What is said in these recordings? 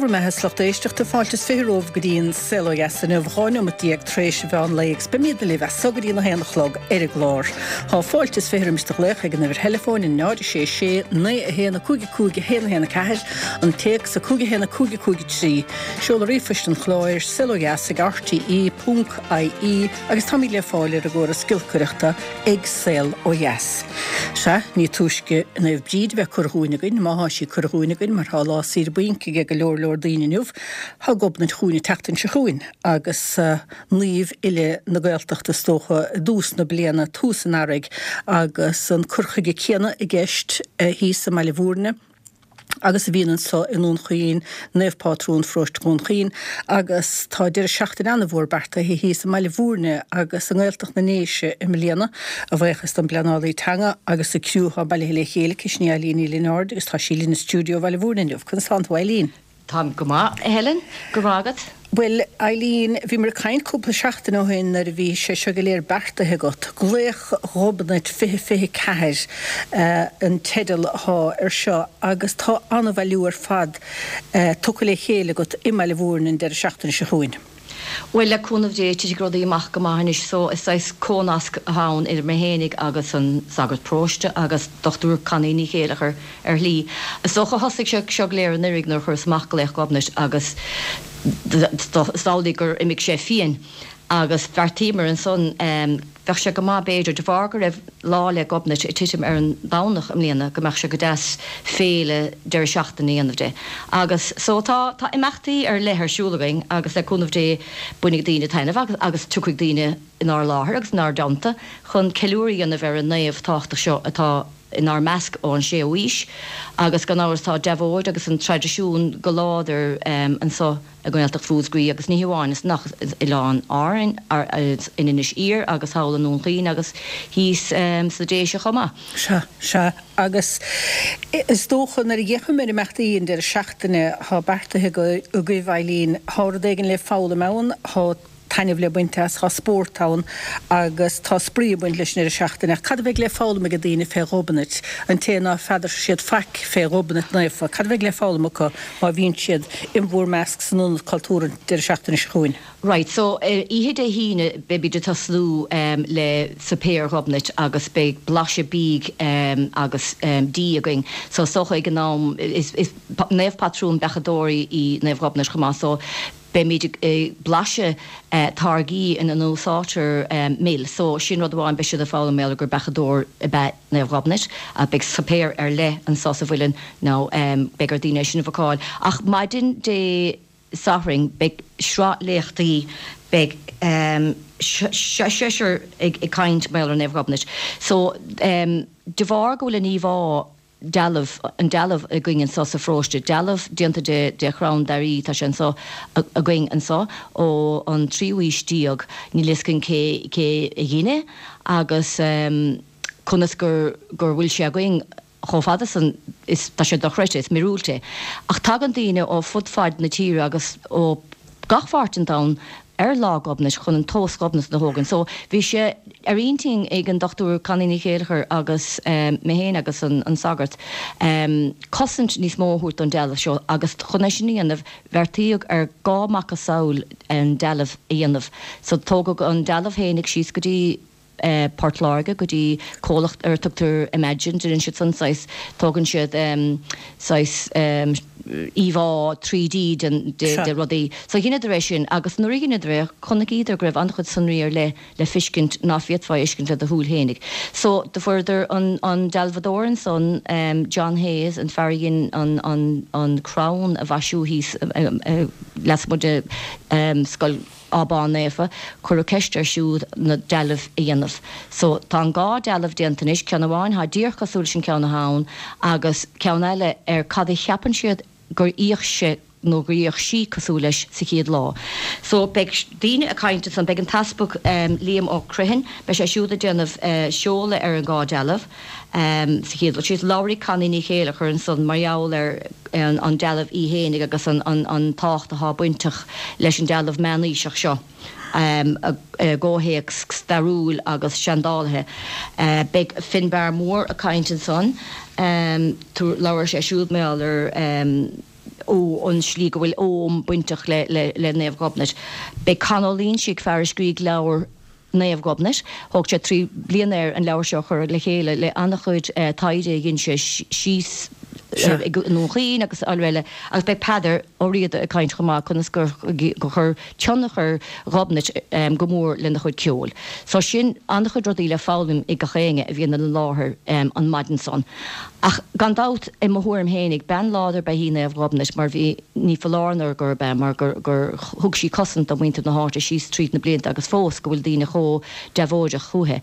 bhur mbeatha 's lucht éisteachta, fáilte is 20 romhaibh go dtí an Saol Ó Dheas inniu, 12 neomat tar éis an mheán lae agus beimídne libh as so go dtí an 1 a chlog ar an gclár. Tá fáilte is 20 roimis do ghlaoch ag an uimhir theileafóin, 0 6 6 9 1 5 5 1 1 4, an téacs 5 1 5 5 3. Seoladh ríomhphoist an chláir, saolodheas ag rte ponc ie agus táimid le fáil ar an gcóras giolcaireachta ag Saol Ó Dheas. Sea, ní túisce Naomh Bríd a bheith curtha dhúinn againn, má thá sí curtha dhúinn againn, mar thá lá saoire bainc aige go leor leor daoine inniu, thá Gobnait chugainn an tseachtain seo chugainn, agus naomh uile na Gaeltachta is dócha i dtús na bliana, tús an earraigh, agus an cur chuige céanna i gceist thíos i mBaile Bhúirne. agus a bhíonn anso i nDún Chaoin, Naomh Pátrún Pharóiste Dhún Chaoin, agus tá deireadh seachtaine an-mhór beartaithe thíos i mBaile Bhúirne agus i nGaeltacht na nDéise i mbliana, a bhuíochas don bpleanálaí teanga agus an criú atá bailithe le chéile aici, sin í Eileen Ní Lionáird agus tá sí linn i stiúideo Bhaile Bhúirne inniu. Conas tánn tú, a Eileen? Táim go maith, a Helen. Go raibh maith agat. Bhuel, Eileen, bhíomar ag caint cúpla seachtain ó shin nuair a bhí sé seo go léir beartaithe agat. Glaoch Ghobnait 2024 an teideal athá ar seo agus tá an-bhailiú ar fad tugtha le chéile agat i mBaile Bhúirne an deireadh seachtaine seo chugainn. Bhuel, le cúnamh Dé, titfidh rudaí amach go maith anois. So, is saghas comhnasc atá ann idir mé fhéinig agus an sagart paróiste agus Dochtúir Connie Ní Chéileachair ar shlí. Is dócha, thosaigh sé seo go léir anuiridh nuair a chuireas amach Glaoch Ghobnait agus is amhlaidh gur imigh sé fiain agus bheartaíomar ansan, bheadh sé go maith b'fhéidir, de bharr go raibh Lá 'le Gobnait ag titim ar an Domhnach i mbliana, go mbeadh sé go deas féile deireadh seachtaine a dhéanamh de. Agus so tá, tá imeachtaí ar leith ar siúl againn agus le cúnamh Dé bainfidh daoine taitneamh agus, agus tiocfaidh daoine inár láthair agus inár dteannta chun ceiliúradh a dhéanamh ar an naomh tábhachtach seo atá inár measc ón séú aois agus gan amhras tá deabhóid agus an traidisiún go láidir anso i nGaeltacht Mhúscraí agus ní hamháin ansan ach Oileáin Árainn, in Inis Oírr agus thall i nDún Chaoin agus thíos sna Déise chomh maith. Sea, sea. Agus is dócha nuair a fhéachaim ar imeachtaí an deireadh seachtaine atá beartaithe agaibh, Eileen, tá rud éigin le foghlaim ann, tá taitneamh le baint as, tá spórt ann agus tá spraoi ag baint leis an deireadh seachtaine. Ach cad a bheidh le foghlaim ag daoine fé Ghobnait, an té ná feadar siad faic fé Ghobnait Naofa, cad a bheidh le foghlaim acu má bhíonn siad in bhur measc san Ionad Cultúrtha an deireadh seachtaine seo chugainn? Right, so ar oíche Dé hAoine beimid ag tosnú le suipéar Ghobnait agus beidh blaiseadh bídh agus dí againn. So is dócha ag an am, is naomh patrún beachadóirí í Naomh Ghobnait chomh maith so Beimid ag blaiseadh táirgí ina n-úsáidtear mil so sin rud amháin, beidh siad ag foghlaim mar gheall gur beachadóir ab ea Naomh Ghobnait. Beidh suipéar ar leith anso sa Mhuileann now beidh ar daoine é sin a bhookáil. Ach maidin Dé Sathairn beidh sraith léachtaí, beidh seisear ag caint mar gheall ar Naomh Ghobnait. So de bharr go bhfuil an íomhá dealbh, an dealbh againn anso sa pharóiste, dealbh déanta de, de chrann dair, tá sé anso againn anso ó an tríú aois déag, níl fhios againn cé, cé a dhein é agus conas gur, gur bhfuil sé againn chomh fada san, is, tá sé dochreidte, is míorúilt é. Ach tagann daoine ó fud fad na tíre agus ó gach pháirt den domhan ar Lá Ghobnait chun an tomhas Ghobnatan a thógaint. So bhí sé ar intinn ag an Dr Connie Ní Chéileachair agus mé féin agus an sagart cosaint níos mó a thabhairt don dealbh seo agus chun é sin a dhéanamh bheartaíodh ar dhá macasamhail an dealbh a dhéanamh. So tógadh an dealbh fhéinig síos go dtí Port Láirge go dtí comhlacht ar a tugtar Imagine, déanann siad san saghas, tógann siad saghas íomhá 3D den, de rudaí. So dheineadar é sin agus nuair a dheineadar é chonaicíodar go raibh an-chuid sonraí ar leith le feiscint ná féadfá a fheiscint le do shúil fhéinig. So do fuaireadar an, an dealbhadóir ansan, John Hayes, an fear a dhein an, an, an crann a mhaisiú thíos lasmuigh de scoil, Abán Naofa, cuireadh ceist air siúd na dealbh a dhéanamh. So, tá an dhá dealbh déanta anois, ceann amháin thá díreach cosúil leis an ceann athá ann agus ceann eile ar cad a cheapann siad gur fhéach sé nó gur fhéach sí cosúil leis sa chéad lá. So, beidh daoine ag caint ansan, beidh an tEaspag Liam Ó Criomhthain, beidh sé siúd ag déanamh seoladh ar an dhá dealbh. Sa chéad dul síos, labharfaidh Connie Ní Chéileachair ansan mar gheall ar an dealbh í fhéinig agus an tábhacht athá bainteach leis an dealbh meánaoiseach seo i gcomhthéacs stairiúil agus seandálaithe. Beidh Finbarr Moore ag caint ansan, labharfaidh sé siúd mar gheall ar. ó an slí go bhfuil Ogham bainteach le le Naomh Ghobnait. Beidh Con Ó Loingsigh, fear a scrígh leabhar Naomh Gobnait, thóg sé 3 bliana air an leabhar seo a chur le chéile le an-chuid taighde a dhein sé síos i nDún Chaoin agus araile agus beidh Peadar Ó Riada ag caint chomh maith conas gur chuir tionchar Ghobnait go mór lena chuid ceoil. So sin an-chuid rudaí le foghlaim ag gach éinne a bhíonn ina láthair an maidin san. Ach gan dabht, i mo thuairim fhéinig, bean láidir ba ea í Naomh Ghobnait mar bhí, ní foláir nó gurb ea, mar gur gur thug sí cosaint do mhuintir na háite síos tríd na blianta agus fós go bhfuil daoine chomh deabhóideach chúithi.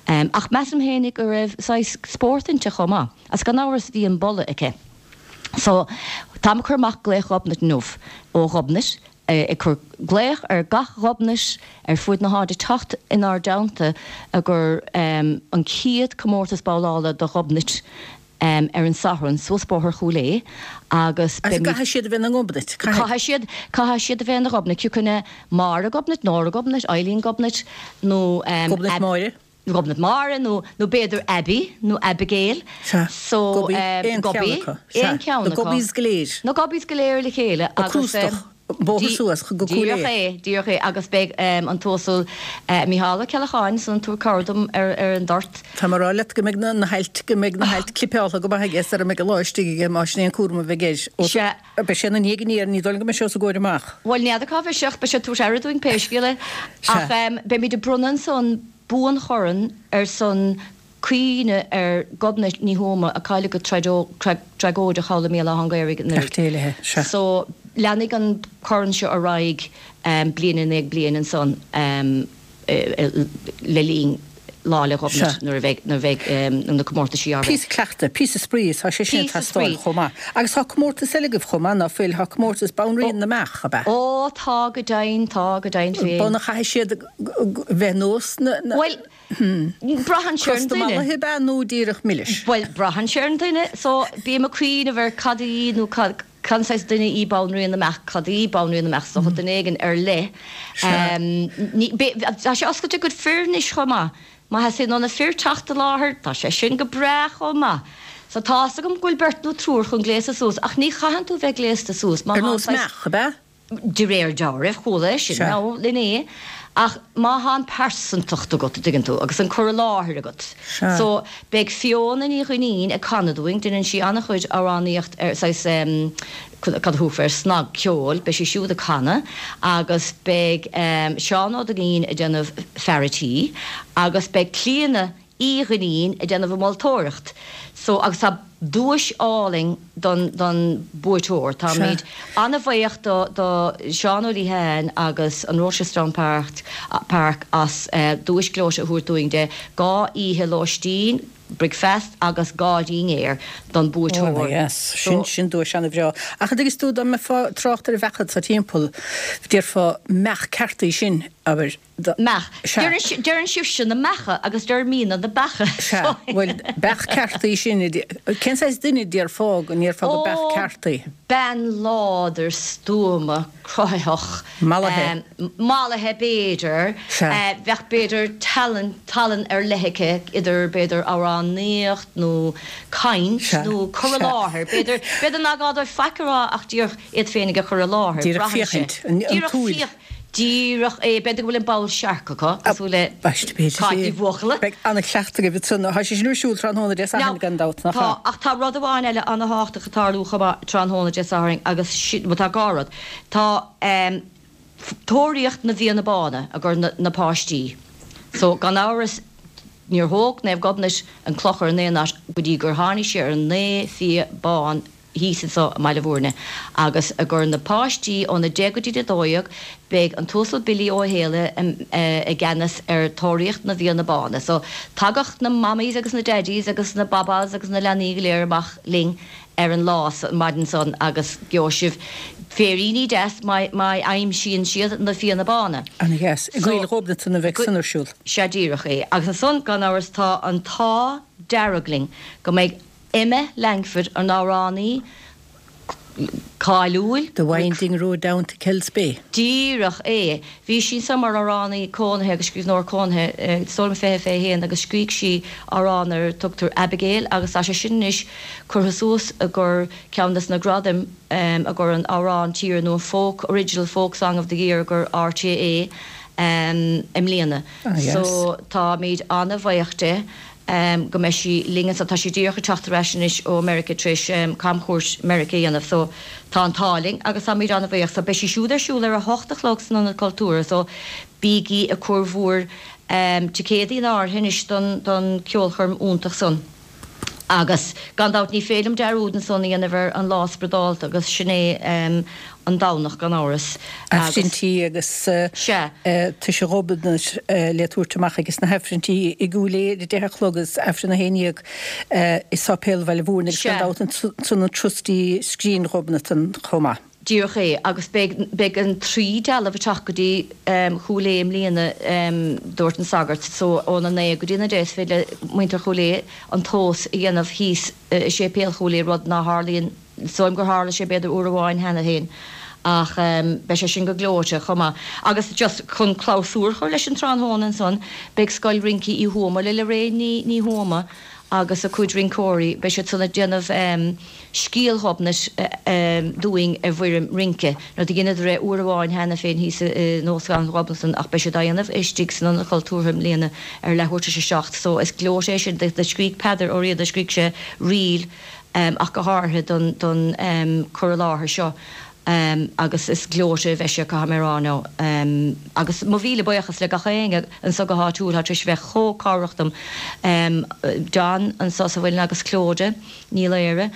Ach measaim fhéinig go raibh saghas spórt inti chomh maith. Agus gan amhras bhí an boladh aici. So, táim ag cur amach glaoch Ghobnait inniu ó Ghobnait, ag cur glaoch ar gach Ghobnait ar fuaid na háite teacht inár dteannta i gcomhair an chéad comórtas babhlála do Ghobnait ar an Satharn suas Bóthar Chúil Aodha agus beimid. Caithfidh siad a bheith ina nGobnait, caithfidh. Caithfidh siad, caithfidh siad a bheith ina Ghobnait, cioca ina Máire Gobnait, Nóra Gobnait, Eileen Gobnait nó. Gobnait Máire. Gobnait Máire nó nó b'fhéidir Abby nó Abigail. Sea. So, Gobby, aon cheann acu. Aon cheann acu. Na Gobbies go léir. Na Gobbies go léir le chéile agus. Crústach, bóthar suas go Cúil Aodha. Díreach é, díreach é agus beidh an tUasal Mícheál Ó Ceallacháin ansan ag tabhairt cabhair dom ar ar an dort. Tá mé ag rá leat go mbeidh na hailt, go mbeidh na hailt clipeáltha go maith aige sara mbeidh an lá istigh aige más sin é an cúram a bheidh air. Sea. Beidh sé ina ndiaidh aniar, ní dóigh liom go mbeidh sé os a gcomhair amach. Bhuel, n'fheadar cá bheidh sé ach beidh sé ag tabhairt aire dúinn pé scéal é. Ach beimid ag bronnadh ansan buanchorn ar son cuimhne ar Ghobnait Ní Thuama a cailleadh go tragóideach thall i mBéal Átha an Ghaorthaidh anuraidh. Beannacht Dé léi, sea. So, leanfaidh an corn seo ar aghaidh bliain i ndiaidh bliain ansan le linn Lá 'le Gobnait nuair a bheidh, nuair a bheidh na comórtaisí á rith. Píosa cleachtaidh, píosa spraoi, tá sé sin ag teastáil chomh maith. Agus tá comórtas eile agaibh chomh maith, ná fuil? Tá comórtas Banríon na mBeach, ab ea? Ó, tá go deimhin, tá go deimhin féin. B'ionann chaithfidh siad bheith nós na. Bhuel, braitheann sé ar an duine. Crosta mallaithe ab ea nó díreach milis? Bhuel, braitheann sé ar an duine. So, bím ag cuimhneamh ar cad í nó cad, cén saghas duine í Banríon na mBeach, cad í Banríon na mBeach, is dócha duine éigin ar leith. Ní, tá sé oscailte go fir anois chomh maith. Má theastaíonn ó na fir teacht i láthair, tá sé sin go breá chomh maith. So tá's agam go bhfuil beirt nó triúr chun gléasadh suas, ach ní chaitheann tú bheith gléasta suas má Ar tá an nós saghas. meach, ab ea? De réir dealraimh, chuala é sin, nó inné, ach má thá an pearsantacht agat, a dtuigeann tú, agus an cur i láthair agat. Sea. So, beidh Fiona Ní Dhuinnín ag canadh dúinn, deineann sí an-chuid amhránaíocht ar saghas em, cad a thabharfá air, snagcheol, beidh sí siúd ag canadh, agus beidh em, Seán Ó Duinnín ag déanamh fear a' tí, agus beidh Clíona Uí Dhuinnín ag déanamh an mholtóireacht. So, agus tá duais álainn don, don buaiteoir. Táimid an-bhuíoch do, do Seán Ó Liatháin agus an Rochestown Park, Park as duais gleoite a thabhairt dúinn de 2 oíche lóistín, bricfeast agus 2 dhinnéar don buaiteoir. Ana-dheas. Sin, sin duais ana-bhreá. Ach an dtuigeann tú, dá mbeifeá ag trácht ar bheacha atá timpeall, déarfá meach ceart í sin, abair. Meach. Sea. Deireann sibhse na meacha agus deirimidne na beacha. Sea. Bhuel, beach ceart í sin. Cén saghas duine a déarfá go ndéarfá go beach ceart í? Ó, bean láidir, stuama, cruthaitheach. Mallaithe. Mallaithe, b'fhéidir. Sea. Bheadh, b'fhéidir, tallann, tallann ar leith aici, idir, b'fhéidir, amhránaíocht nó caint nó cur i láthair. B'fhéidir, b'fhéidir nach gá dóibh faic a rá ach díreach iad féinig a chur i láthair. Díreach féachaint, an tsúil. Díreach é. B'fhéidir go bhfuil an ball searc acu, cosúil le Cáit Ní Bhuachalla. Beidh an-chleachtadh agaibh ansan. Tá sé sin ar siúl tráthnóna Dé Sathairn gan dabht, nach ea? Tá, ach tá rud amháin eile an-thábhachtach ag tarlú chomh maith tráthnóna Dé Sathairn agus sin, bhuel tá dhá rud. Tá Tóraíocht na bhFianna Bána i gcomhair na páistí. So, gan amhras, níor thóg Naomh Gobnait an clochar in aon áit go dtí gur tháinig sí ar an naoi fia bán thíos anso i mBaile Bhúirne agus i gcomhair na páistí óna 10 go dtí 12 beidh an tUasal Billy Ó Héalaithe i gceannas ar Tóraíocht na bhFianna Bána. So tagadh na mammies agus na daddies agus na babás agus na leanaí go léir amach linn ar an lá an maidin san agus gheobhaidh sibh féiríní deas má aimsíonn siad na Fianna Bána. Ana dheas. I gCoill Ghobnatan a bheidh san ar siúl. Sea díreach é. Agus ansan gan amhras tá an t-ádh dearg linn go mbeidh Emma Langford, an amhránaí. Cáiliúil. The Winding Road Down to Kells Bay. Díreach é. Bhí sí anso mar amhránaí cónaithe agus scríbhneoir cónaithe, is dóigh liom 20, 21 agus scrígh sí amhrán ar a tugtar Abigail agus tá sé sin anois curtha suas i gcomhair ceann des na gradaim i gcomhair an amhrán tíre nó an folk, Original Folk Song of the Year i gcomhair RTÉ i mbliana. So táimid ana-bhuíoch di. go mbeidh sí linn anso. Tá sí díreach ag teacht ar ais anois ó Meirice tar éis camchuairt Meirice a dhéanamh so tá an t-ádh linn agus táimid an-bhuíoch. So beidh sí siúd ar siúl ar a hocht a chlog san Ionad Cultúrtha so bígí ag cur bhúr ticéadaí in áirithe anois don don ceolchoirm iontach san. Agus gan dabht ní féidir liom dearúd ansan a dhéanamh ar an lá spioradálta agus sin é an Domhnach gan amhras agus. Aifrinntí agus Sea. Toise Ghobnait le tabhairt amach ages na hAifrinntí i gCúil Aodha ar a deich a chlog agus Aifreann 11 i Sáipéal Bhaile Mhúirne agus gan Sea. dabht ansan an turas dtí Scrín Ghobnatan chomh maith. Díreach é. Agus beidh, beidh an trí dealbh ag teacht go dtí Chúil Aodha i mbliana, dúirt an sagart. So óna naoi go dtí an 10 is féidir le muintir Chúil Aodha an tomhas a dhéanamh thíos i Séipéal Chúil Aodha, rud ná tharlaíonn, is dóigh liom gur tharla sé b'fhéidir uair amháin cheana féin. Ach beidh sé sin go gleoite chomh maith. Agus just chun clabhsúr a chur leis an tráthnóna ansan, beidh Scoil Rince Uí Thuama le Lorraine Ní, Ní Thuama agus a cuid rinceoirí, beidh siad san ag déanamh, Scéal Ghobnait dúinn i bhfoirm rince. Now do dheineadar é uair amháin cheana féin thíos in Óstlann Ghobnatan ach beidh siad á dhéanamh istigh san Ionad Cultúrtha i mbliana ar leathuair tar éis a 7 so is gleoite é sin. Do scrígh Peadar Ó Riada, scrígh sé ríl ach go háirithe don don cur i láthair seo agus is gleoite a bheidh sé caithfidh mé a rá now. Agus mo mhíle buíochas le gach éinne anso go háitiúil atá tar éis a bheith chomh cabhrach dom. John anso sa Mhuileann agus Clodagh. Ní Laoire,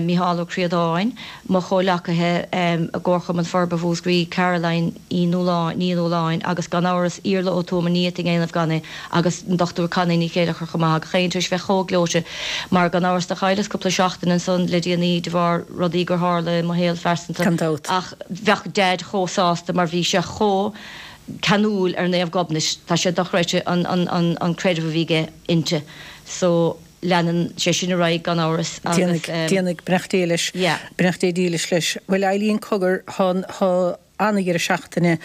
Mícheál Ó Críodáin, mo chomhleacaithe i gComharchumann Forbartha Mhúscraí, Caroline Uí Nualláin, Ní Nualláin agus gan amhras Iarla Ó Tuama, ní fhéadfainn a dhéanamh gan é, agus an Dr Connie Ní Chéilleachair chomh maith, gach éinne tar éis bheith chomh gleoite mar gan amhras do chailleas cúpla seachtain ansan le déanaí de bharr rudaí gur tharla i mo shaol phearsanta Gan dabht. ach bheadh Deaid chomh sásta mar bhí sé chomh ceanúil ar Naomh Gobnait, tá sé dochreidte an an an creideamh a bhí aige inti so. Leanann sé sin ar aghaidh gan amhras agus. Déanfaidh, beannacht Dé leis. Yeah. Beannacht Dé dílis leis. Bhuel Eileen cogar, tá, tá an-dheireadh seachtaine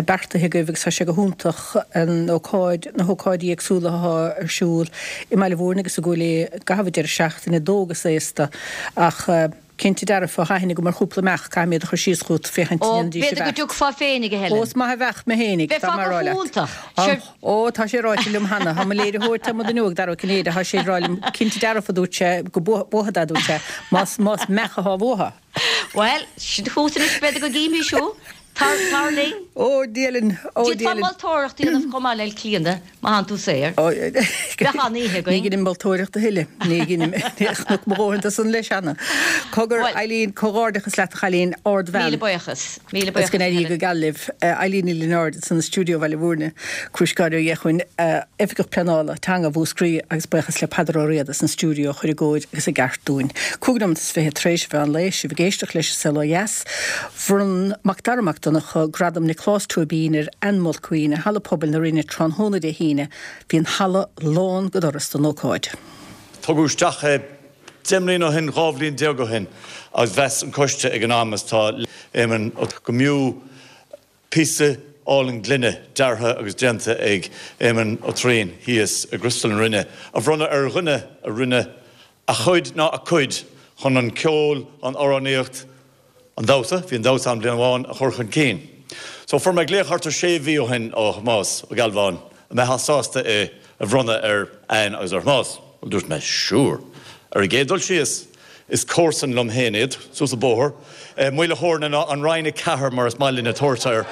beartaithe agaibh agus tá sé go hiontach an ócáid, na hócáidí éagsúla atá ar siúl i mBaile Mhúirne agus i gCúil Aodha i gcaitheamh an deireadh seachtaine, d'óg is aosta ach cinnte dearfa, tá aithne agam ar chúpla meach, caithfidh mé iad a chur síos chugat féachaint Ó, an ndéanfaidís a b'fhéidir go bheart. dtiocfá féinig, a Helen. Ó, is maith a bheadh mé féinig, Bheifeá tá mé a go rá leat. hiontach. Tá, Sure. Ó, tá sé ráite liom cheana. Tá mo léiritheoir, tá mo dhuine óg, Dara Ó Cinnéide, tá sé ag rá liom, cinnte dearfa, a dúirt sé, go buafad é, a dúirt sé, más, más meach atá uathu. Bhuel, sin chugat anois, b'fhéidir go gcífimís thú. Tar, tar linn. Ó, Dia linn, ó, D'fhéadfá Dia linn. moltóireacht a dhéanamh chomh maith le Clíona, má thánn tú saor. Ó, Bheadh an-oíche ní againn. dheinim moltóireacht a thuilleadh. Ní dheinim. Chonac mo dhóthain de san leis cheana. Cogar, Bhuel. Eileen, comhghairdeachas leat, a chailín, ardbhean. Míle buíochas. Míle Is buíochas, go n-éirí Helen. go geal libh. Eileen Ní Lionáird ansan i stiúideo Bhaile Mhúirne, Crúiscáin Ó Dhéachuin, Oifigeach Pleanála Teanga Mhúscraí agus buíochas le Peadar Ó Riada san stiúideo a chuir i gcóir agus i gceart dúinn. 25 nóimeat tar éis an mheán lae, sibh ag éisteacht leis an Saol Ó Dheas. Bhronn Macdara Mac Donncha Gradam Nioclás Tóibín ar Anne Mulqueen i Halla Pobail na Rinne tráthnóna Dé hAoine. Bhí an halla lán go doras don ócáid. Tugadh isteach é 10 mbliana ó shin, 12 bhliain ó shin agus mheas an coiste ag an am is tá Éamonn Ó go mb'fhiú píosa álainn gloine deartha agus déanta ag Éamonn Ó Troian thíos i gCriostal na Rinne a bhronnadh ar dhuine a rinne a chuid ná a cuid chun an ceol, an amhránaíocht, an damhsa, bhí an damhsa ann bliain amháin, a chur chun cinn. So fuair mé glaoch thart ar sé mhí ó shin ó Thomás Ó Gealbháin an mbeifeá sásta é a bhronnadh ar Anne agus ar Thomás. Bhuel dúirt mé sure. Ar an gcéad dul síos, is comharsan liom féin iad, suas an bóthar, Maoil a' Chóirne ná an Rinn 4 mar is maith linne tabhairt air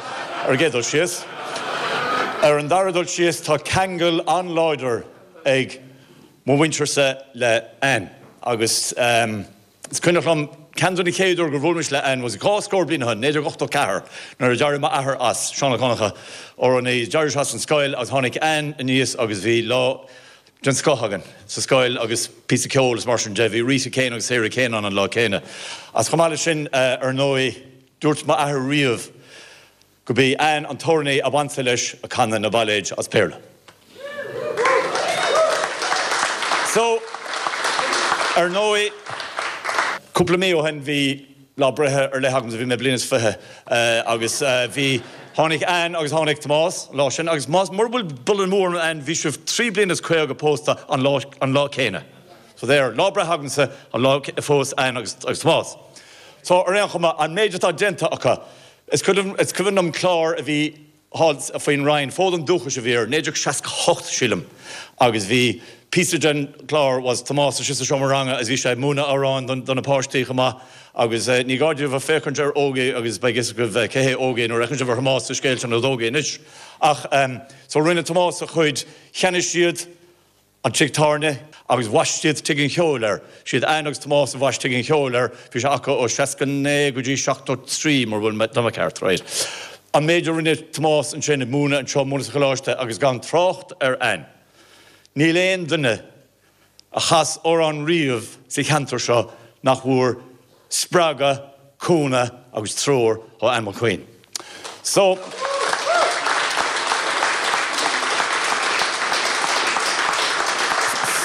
ar an gcéad dul síos. Ar an dara dul síos tá ceangal an-láidir ag mo mhuintirse le Anne agus is cuimhneach liom ceann de na chéad uair gur bhuail mise le Anne was dhá scór bliain ó shin, 1984, nuair a d'éirigh m'athair as, Seán Ó Conchadha, amhránaí, d'éirigh sé as an scoil agus tháinig Anne aníos agus bhí lá den scoth againn sa scoil agus píosa ceoil is mar sin de. Bhí Rita Kane agus Sarah Kane ann an lá céanna. Agus chomh maith leis sin, ar ndóigh, dúirt m'athair riamh, Go b'í Anne an t-amhránaí ab ansa leis a canadh na bailéid as Béarla. So, ar ndóigh, cúpla mí ó shin bhí. Lá breithe ar leith agamsa, bhí mé bliain is 20 agus bhí, tháinig Ann agus tháinig Tomás an lá sin agus más, mura bhfuil buille amú orm Ann, bhí sibh 3 bliana is 50 pósta an lá, an lá céanna. So there, lá breithe agamsa an lá a phós Ann agus, agus Tomás. So ar aon chuma, an méid atá déanta acu, is cuimhin, is cuimhin liom clár a bhí, thall faoin Rinn, Fód an Dúchais a bhí air, 1968 sílim, agus bhí píosa den chlár was Tomás istigh sa seomra ranga agus bhí sé ag múineadh amhráin do na páistí chomh maith agus ní gá daoibh ach féachaint ar Ógie agus beidh fhios agaibh cé hé Ógie nuair a fheiceann sibh ar Thomás sa scéal sin as Ógie anois. Ach so rinne Tomás a chuid, cheannaigh siad an tigh tábhairne agus bhaist siad Tigh an Cheoil air. Siad Ann agus Tomás a bhaist Tigh an Cheoil air. Bhí sé acu ó 69 go dtí 73, mura bhfuil mé, tá mé ceart, right. An méid a rinne Tomás ansin, ag múineadh anseo, múineadh sa choláiste agus gan trácht ar Ann. Níl aon duine a chas amhrán riamh sa cheantar seo nach bhfuair spreagadh, cúnamh agus treoir ó Ann Mulqueen. So.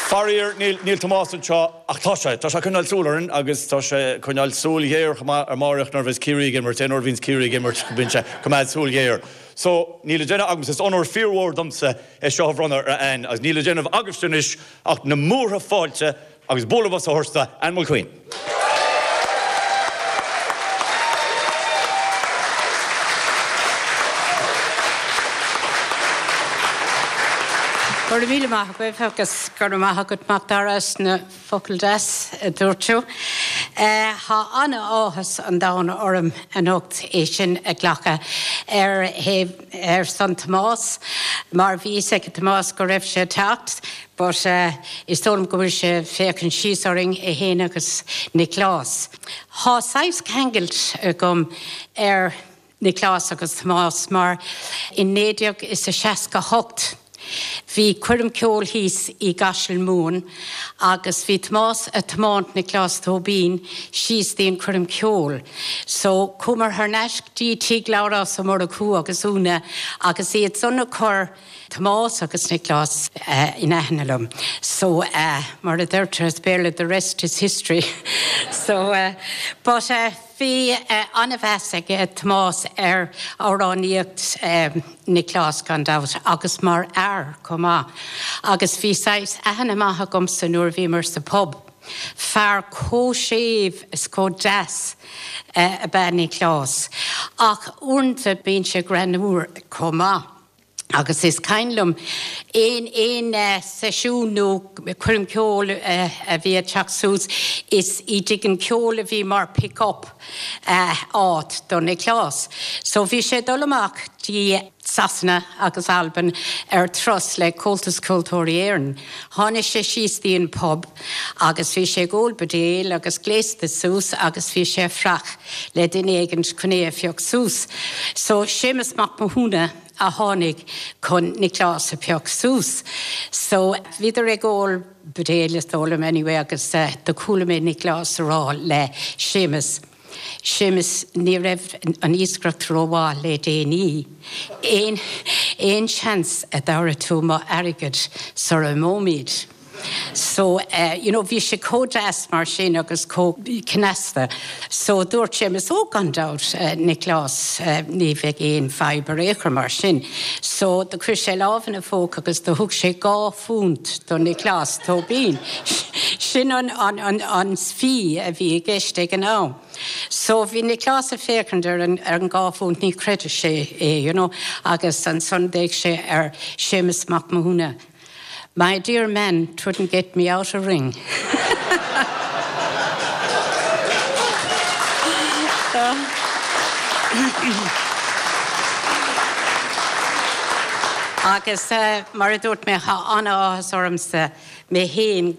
Faraor, níl, níl Tomás anseo, ach tá sé, tá sé ag coinneáil súil orainn agus tá sé ag coinneáil súil ghéar chomh maith ar Máireach nuair a bheas Ciarraí ag imirt, aon uair a bhíonns Ciarraí ag imirt bíonn sé ag coimeád súil ghéar. So, níl le déanamh agamsa, is onóir fíormhór domsa é seo a bhronnadh ar Ann agus níl le déanamh agaibhse anois ach na múrtha fáilte Agus bualadh bos a thabhairt do Ann Mulqueen. Go raibh míle maith agaibh agus go raibh maith agat Macdara as na focail deas a dúirt tú. Tá an-áthas an domhain orm anocht é sin a ghlacadh ar thaobh ar son Tomás mar bhí fhios ag Tomás go raibh sé ag teacht But is dóigh liom go bhfuil sé ag féachaint síos orainn, é fhéin agus Nioclás. Thá saghas ceangailt agam ar Nioclás agus Tomás mar in 1968 bhí coirm ceoil thíos i gCaiseal Mumhan agus bhí Tomás a' tiomáint Nioclás Tóibín síos dtí an coirm ceoil. So chuamar thar n-ais dtí tigh Labhrás Ó Murchú agus Úna agus iad san a chuir Tomás agus Nioclás in aithne liom. So, mar a deirtear as Béarla, the rest is history. So, but bhí an-mheas ag Tomás ar amhránaíocht Nioclás gan dabht agus mar fhear chomh maith. Agus bhí saghas aithne maith agamsa nuair a bhíomar sa pub. Fear chomh séimh is chomh deas ab ea Nioclás. Ach uaireanta bíonn sé greannmhar chomh maith. Agus is cuimhin liom aon aon seisiún nó coirm ceoil a bhí ag teacht suas, is i dTigh an Cheoil a bhí mar pick up áit do Nioclás. So bhí sé ag dul amach dtí Sasana agus Albain ar turas le Comhaltas Ceoltóirí Éireann. Tháinig sé síos dtí an pub agus bhí sé ag ól buidéil agus gléasta suas agus bhí sé ag fuireach le duine éigint chun é a phioc suas. So Séamus Mac Mathúna a tháinig chun Nioclás a phioc suas. So bhíodar ag ól buidéil is dóigh liom anyway agus do chuala mé Nioclás a rá le Séamus, Séamus ní raibh an iascaireacht rómhaith le déanaí, aon aon seans a dtabharfaidh tú mo airgead sara imeoimid? So, you know, bhí sé chomh deas mar sin agus chomh cneasta. So, dúirt Séamus, oh, gan dabht, Nioclás, ní bheidh aon fadhb ar aon chor mar sin. So, do chuir sé lámh ina phóca agus do thug sé £2 do Nioclás Tóibín. Sin an, an, an, an fee a bhí i gceist ag an am. So, bhí Nioclás ag féachaint ar an, ar an £2, ní chreidfeadh sé é, you know, agus ansan d'fhéach sé ar Séamus Mac Mathúna. My dear man, 'twouldn't get me out a ring. Agus mar a dúirt mé, tá an-áthas ormsa mé féin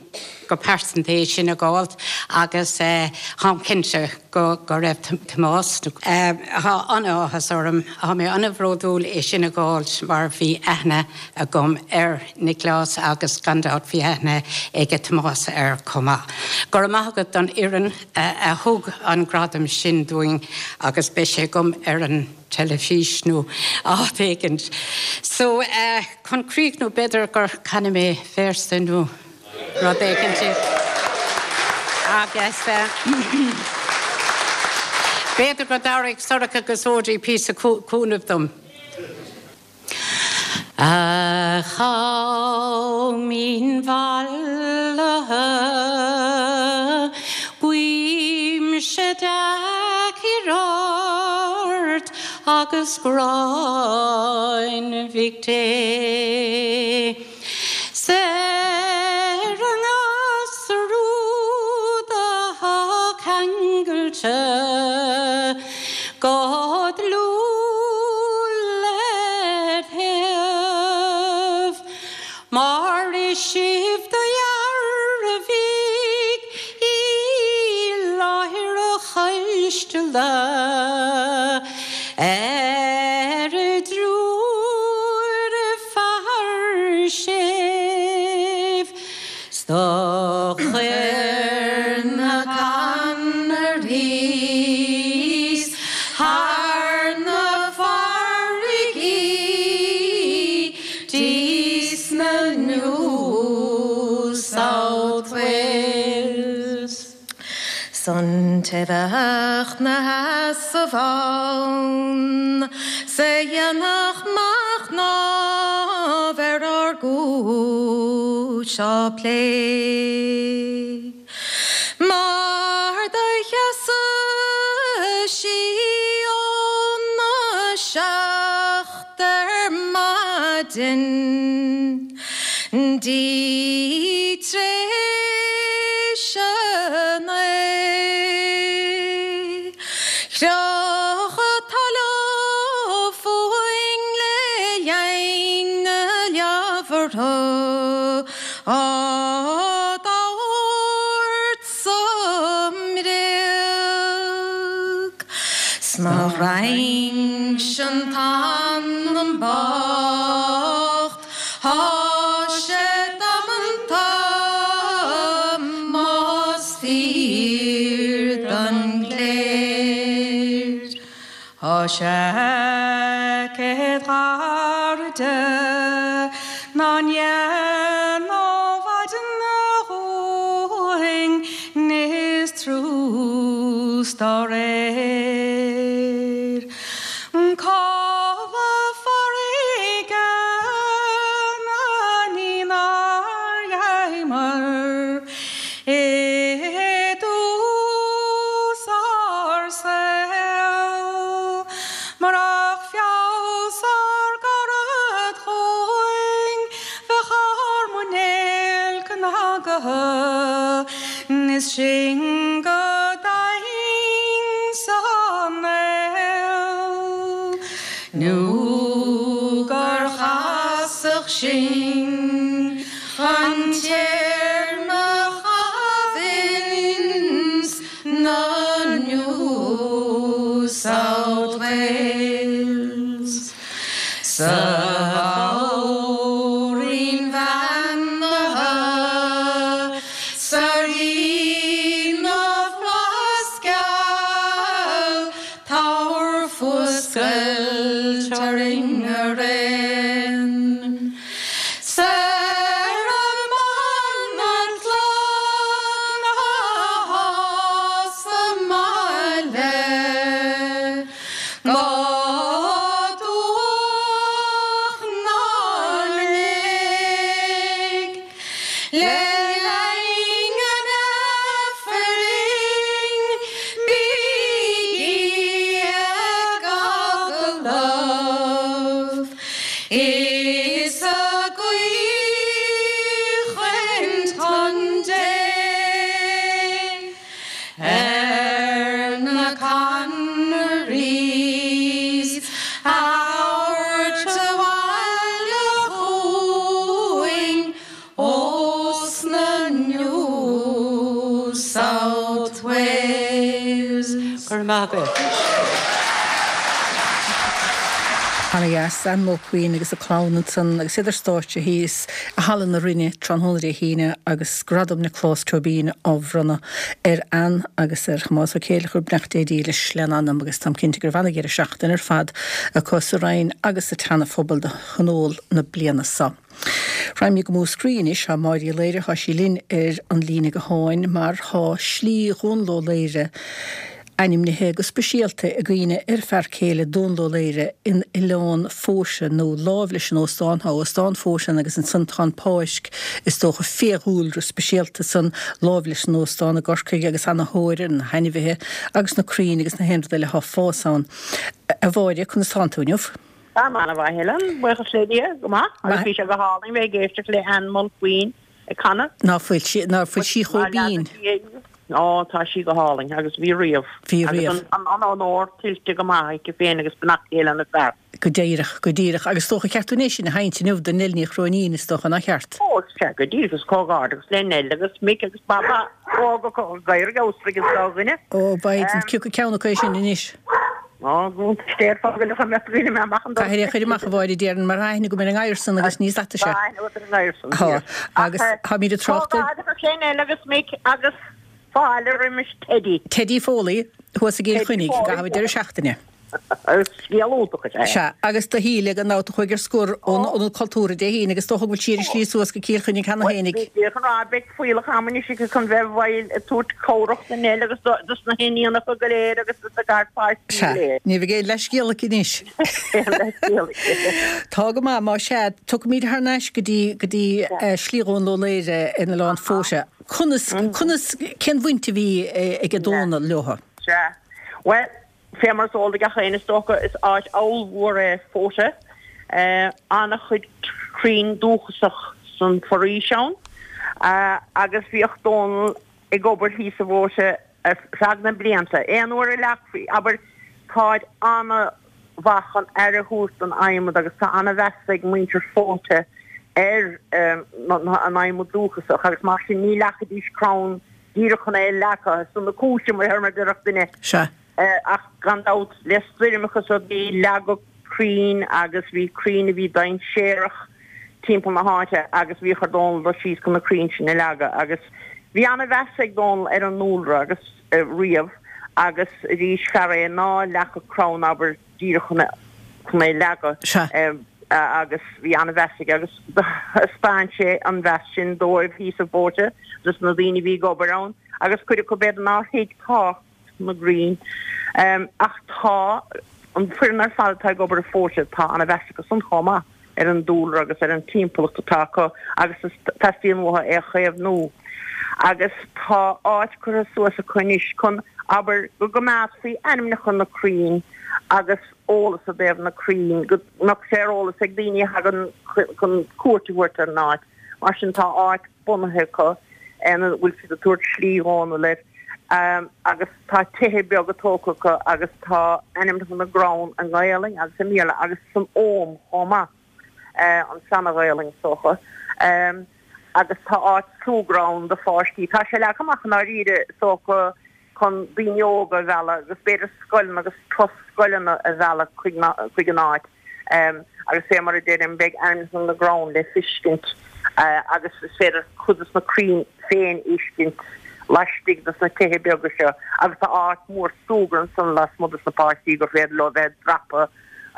go pearsanta é sin a dh'fháilt agus táim cinnte go raibh Tomás. Tá an-áthas orm, tá mé an-bhródúil é sin a dh'fháilt mar bhí aithne agam ar Nioclás agus gan dabht bhí aithne aige Tomás air chomh maith. Go raibh maith agat don fhoireann a thug an gradam sin dúinn agus beidh sé agam ar an teilifís nó áit éigint. So, chun críochnú, b'fhéidir gur canfaidh mé véarsa nó rud éigint agus. B'fhéidir go dtabharfaidh Sorcha agus Audrey píosa cúnaimh dom. A Chaoimhín mhallaithe, guímse dea-chior ort agus gráin Mhic Dé. 'S ar an ngasúr úd athá ceangailte go dlúth led thaobh, mar is sibh do dhearbhaigh i láthair a choisteala ar an dtriúr fear sibh 's do chuir na Conarthaí thar na farraigí 'dtí sna New South Wales. 'S an té bheadh 'na sheasamh ann 's a dhéanfadh machnamh ar ár gcúis á plé. Mar do sheasadh sí óna seacht ar maidin 'dtí t'réis a naoi. Chroch talamh fúinn le linn na leabhartha á dtabhairt sa mbréag. 'S má roinnse an t-anam bocht Tá sé damanta más fíor don gcléir. Tá seaicéad ghairide ná ndéanfadh maidin dhúinn níos trús dá réir. Codladh farraige na ní nár gheibheamar i dtús ár saoil. Murach feabhas ár gcarad dhúinn bheadh ár muinéal cnagaithe is sinn go daingean san aol nó gur chasadh sinn chun téarma a chaitheamh ins na New South Wales. Sa mhór-roinn bheannaithe, 'S a Rí na bhFlaitheas geal, tabhair fuascailt orainn araon. 'S ar an mbanaltra athá sa mbaile, go dubhach ná lig. Le linn an Aifrinn bígí ag agallamh is ag aoichaint chun Dé ar na Conarthaís a thabhairt abhaile chugainn Ós na New South Wales. Go raibh maith agaibh. Ana dheas, Ann Mulqueen agus a clann ansan agus iad ar stáitse thíos i Halla na Rinne tráthnóna Dé hAoine agus Gradam Nioclás Tóibín á bhronnadh ar Ann agus ar Thomás Ó Céileachair, beannacht Dé dílis lena anam agus táim cinnte go raibh ana-dheireadh seachtaine ar fad acu sa Rinn agus sa tSeana-Phobal do thionól na bliana so. Raghaimid go Múscraí anois. Tá Máire Uí Laoire, tá sí linn ar an líne gutháin mar tá Slí Dhomhnaill Ó Laoire. ainmnithe go speisialta i gcuimhne ar a fear céile Dónal Ó Laoire in Oileán Fóise nó láimh leis an óstán, tá Óstán Fóise ann agus ansan tá an páirc is dócha fiadhúlra speisialta san láimh leis an óstán i gCorcaigh agus ana thóir ar na hainmhithe agus na crainn agus na haon rud eile atá ag fás ann. A Mháire, conas tánn tú inniu? Táim an-mhaith, a Helen, buíochas le Dia, go maith, agus bhí sé go hálainn bheith ag éisteacht le Ann Mulqueen ag canadh. Ná fuil sí, ná fuil sí chomh binn? Ó, tá sí go hálainn, agus bhí riamh. Bhí riamh. Agus an onóir tuillte go maith aici féin agus beannacht Dé lena fear. Go díreach, go díreach. Agus is dócha ceart dúinn é sin a sheinnt inniu do Nell Ní Chróinín, is dócha, nach ceart? Ó, sea, go díreach, agus comhghairdeachas le Nell agus Mick agus Baba, ó, go gadhar ag amhasraigh an dá dhuine. Ó, Biden, cé acu ceann acu é sin anois? Ó, go déarfá go leor mbeadh daoine mé amach an doras. Caithfidh é a chur amach, a Mháire, déarfainn, mar tá aithne agam ar an ngadhar san agus ní sata sé. Tá aithne agat ar an ngadhar san, Tá, agus táimid ag trácht ar. Comhghairdeachas le Nell agus Mick agus fáilte roimis Teddy. Teddy Foley, thuas i gCill Chainnigh, i gcaitheamh an deireadh seachtaine. Scéal iontach is ea é. Sea, agus do Shíle gan dabht a chuaigh ar scor ón Ionad Cultúrtha Dé hAoine agus is dócha go bhfuil sí ar a slí suas go Cill Chainnigh cheana féinig. Bhuel, bhí an rá, beidh fuíollach ama anois aici chun bheith bhfeighil ag tabhairt cabhrach do Nell agus dos na hiníonacha go léir agus dos na garpháistí go léir. Sea, ní bheidh aon leathscéal aici anois. Aon leathscéal aici. Tá go maith, má sea, tiocfaimid thar n-ais go dtí, go dtí Slí Dhónaill Ó Laoire in Oileán Fóise. Conas, conas, cén bhaint a bhí ag Dónal leo? Sea, bhuel, Fé mar is eol do gach éinne is dócha, is áit ollmhór é Fóta. An-chuid crainn dúchasach san foraois ann agus bhíodh Dónal ag obair thíos i bhFóta ar feadh na blianta. Aon uair a leagfaí, abair, táid an-mhaith chun aire a thabhairt don adhmad agus tá an-mheas ag muintir Fóta ar an adhmad dúchasach agus mar sin ní leagfaidís crann díreach chun é a leagadh ar son na cúise, mar a déarfadh duine. Sea. Ach gan dabht, le stoirmeacha is rudaí, leagadh crainn agus bhí crainn a bhí dainséarach timpeall na háite agus bhíodh ar Dónal dul síos chun na crainn sin a leagadh. Agus bhí an-mheas ag Dónal ar an ndúlra agus riamh agus arís fear é ná leagfadh crann, abair, díreach chun é a leagadh. Sea. Agus bhí an-mheas aige agus thaispeáin sé an mheas sin dóibh thíos i bhFóta, dos na daoine a bhí ag obair ann agus cuid acu b'fhéidir nár thuig tábhacht na gcrainn. Ach tá an foireann ar fad atá ag obair i bhFóta, tá an-mheas acu san chomh maith ar an dúlra agus ar an timpeallacht atá acu agus teastaíonn uathu é a chaomhnú. Agus tá áit curtha suas acu anois chun, abair, go gcoimeádfaí ainmneacha na crainn agus eolas i dtaobh na crainn, go mbeadh sé ar eolas ag daoine a thagann chun cuairt a thabhairt ar an áit. Mar sin tá áit bunaithe acu ina bhfuil siad ag tabhairt Slí Dhónaill air agus tá tithe beaga tógtha acu agus tá ainmneacha na gcrann i nGaelainn agus i mBéarla agus san Ogham chomh maith, an tSeana-Ghaelainn is dócha. Agus tá áit súgradh ann do pháistí. Tá sé leagtha amach i ndáiríre is dócha chun daoine óga a mhealladh agus b'fhéidir scoileanna agus turas scoileanna a mhealladh chuig an áit agus fé mar a deirim beidh ainmneacha na gcrann le fiscint agus is féidir cuid de na crainn féin a fheiscint laistigh de na tithe beaga seo agus tá áit mhór súgradh ansan lasmuigh dos na páistí gur féidir leo bheith ag dreapadh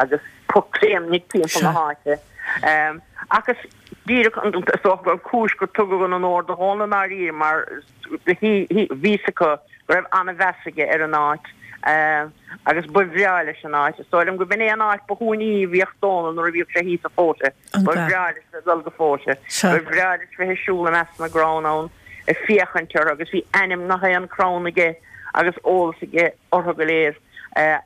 agus pocléimnigh timpeall na háite. Agus díreach is dócha gur cúis gur tugadh an onóir do Dhónal i ndáiríre mar bhí fhios acu go raibh an-mheas aige ar an áit agus ba bhreá leis an áit. Is dóigh liom go b'in é an áit ba shuaimhní a bhíodh Dónal nuair a bhíodh sé thíos i Fóta. Ba bhreá leis bheith ag dul go Fóta. Ba bhreá leis bheith ag siúl i measc na gcrann ann ag féachaint orthu agus bhí ainm gach aon crann aige agus eolas aige orthu go léir.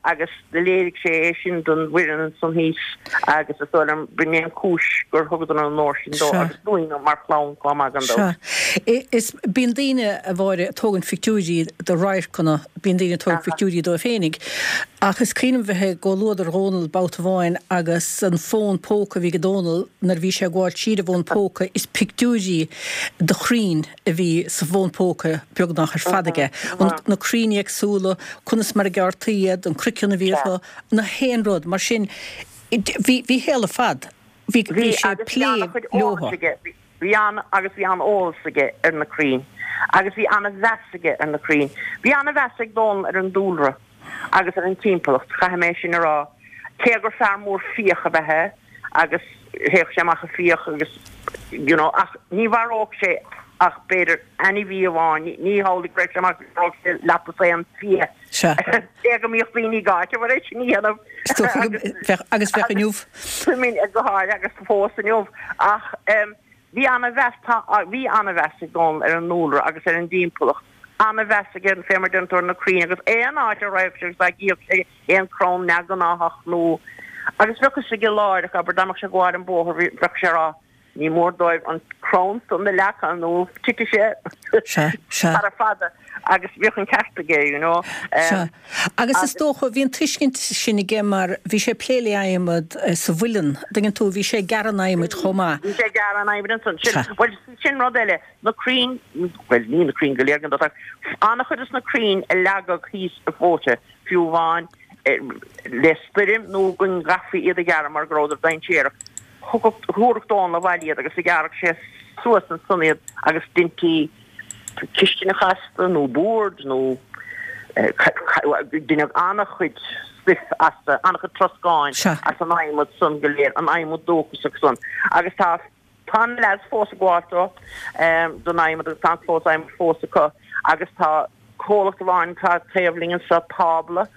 agus do léirigh sé é sin don bhfoireann ansan thíos agus is dóigh liom b'in é an cúis gur thugadar an onóir sin dó agus dúinn mar chlann chomh maith gan dabht. Sea. Is bíonn daoine, a Mháire, ag tógaint phictiúirí de radharcanna, bíonn daoine ag tógaint pictiúirí dóibh féinig, ach is cuimhin liom bheith i gcomhluadar Dhónal babhta amháin agus an fón póca a bhí ag Dónal nuair a bhí sé ag gabháil tríd an bhfón póca is pictiúirí de chrainn a bhí sa bhfón póca beagnach ar fad aige. Na crainn éagsúla, conas mar a gearrtaí iad, an croiceann a bhí orthu, na haon rud. Mar sin, bhí a shaol ar fad, bhí bhí sé ag agus bhí plé an-chuid leo. eolais aige. Bhí an agus bhí an-eolas aige ar na crainn agus bhí an-mheas aige ar na crainn. Bhí an-mheas ag Dónal ar an dúlra agus ar an timpeallacht, caithfidh mé sin a rá. Cé gur fear mór fiach ab ea é agus théadh sé amach ag fiach agus you know ach ní mharódh sé ach b'fhéidir ainmhí amháin, ní hamhlaidh go raibh sé amach go mharódh sé leath dosaen fia. Sea. Cé go mbíodh daoine ag áiteamh air é sin a dhéanamh. Is dócha go mbeadh, agus bheadh inniu. Go háirithe agus fós inniu. Ach bhí ana-mheas, tá, bhí ana-mheas ag Dónal ar an ndúlra agus ar an dtimpeallacht. Ana-mheas aige fé mar deireann tú ar na crainn agus aon áit a raghadh sé agus dá gcífeadh sé aon crann neamhghnáthach nó agus bheadh fhios aige láithreach, abair, dá mbeadh sé ag gabháil an bóthar bheadh sé ag rá Ní mór dóibh an crann san a leagan nó titfidh sé sara fada agus bhíodh an ceart aige, you know. Sea. Agus is dócha, bhí an tuiscint sin aige mar bhí sé ag plé le adhmad sa mhuileann, an dtuigeann tú, bhí sé ag gearradh an adhmaid chomh maith. Bhí sé ag gearradh an adhmaid ansan. Sin, bhuel, sin rud eile, na crainn, bhuel, ní na crainn go léir gan dabht ach an-chuid de na crainn a leagadh thíos i bhFóite, fiú amháin le stoirm nó go gcaithfí iad a ghearradh mar go rabhadar dainséarach, Thabharfadh Dónal abhaile iad agus ghearradh sé suas ansan iad agus deintí cistineacha astu nó boird nó deineadh an-chuid stuif astu, an-chuid troscáin as an adhmad san go léir, an adhmad dúchasach san. Agus tá tá na leaids fós ag gabháil dó don adhmad agus tá an clós adhmaid fós acu agus tá Comhlacht amháin atá taobh linn anseo, Tábla,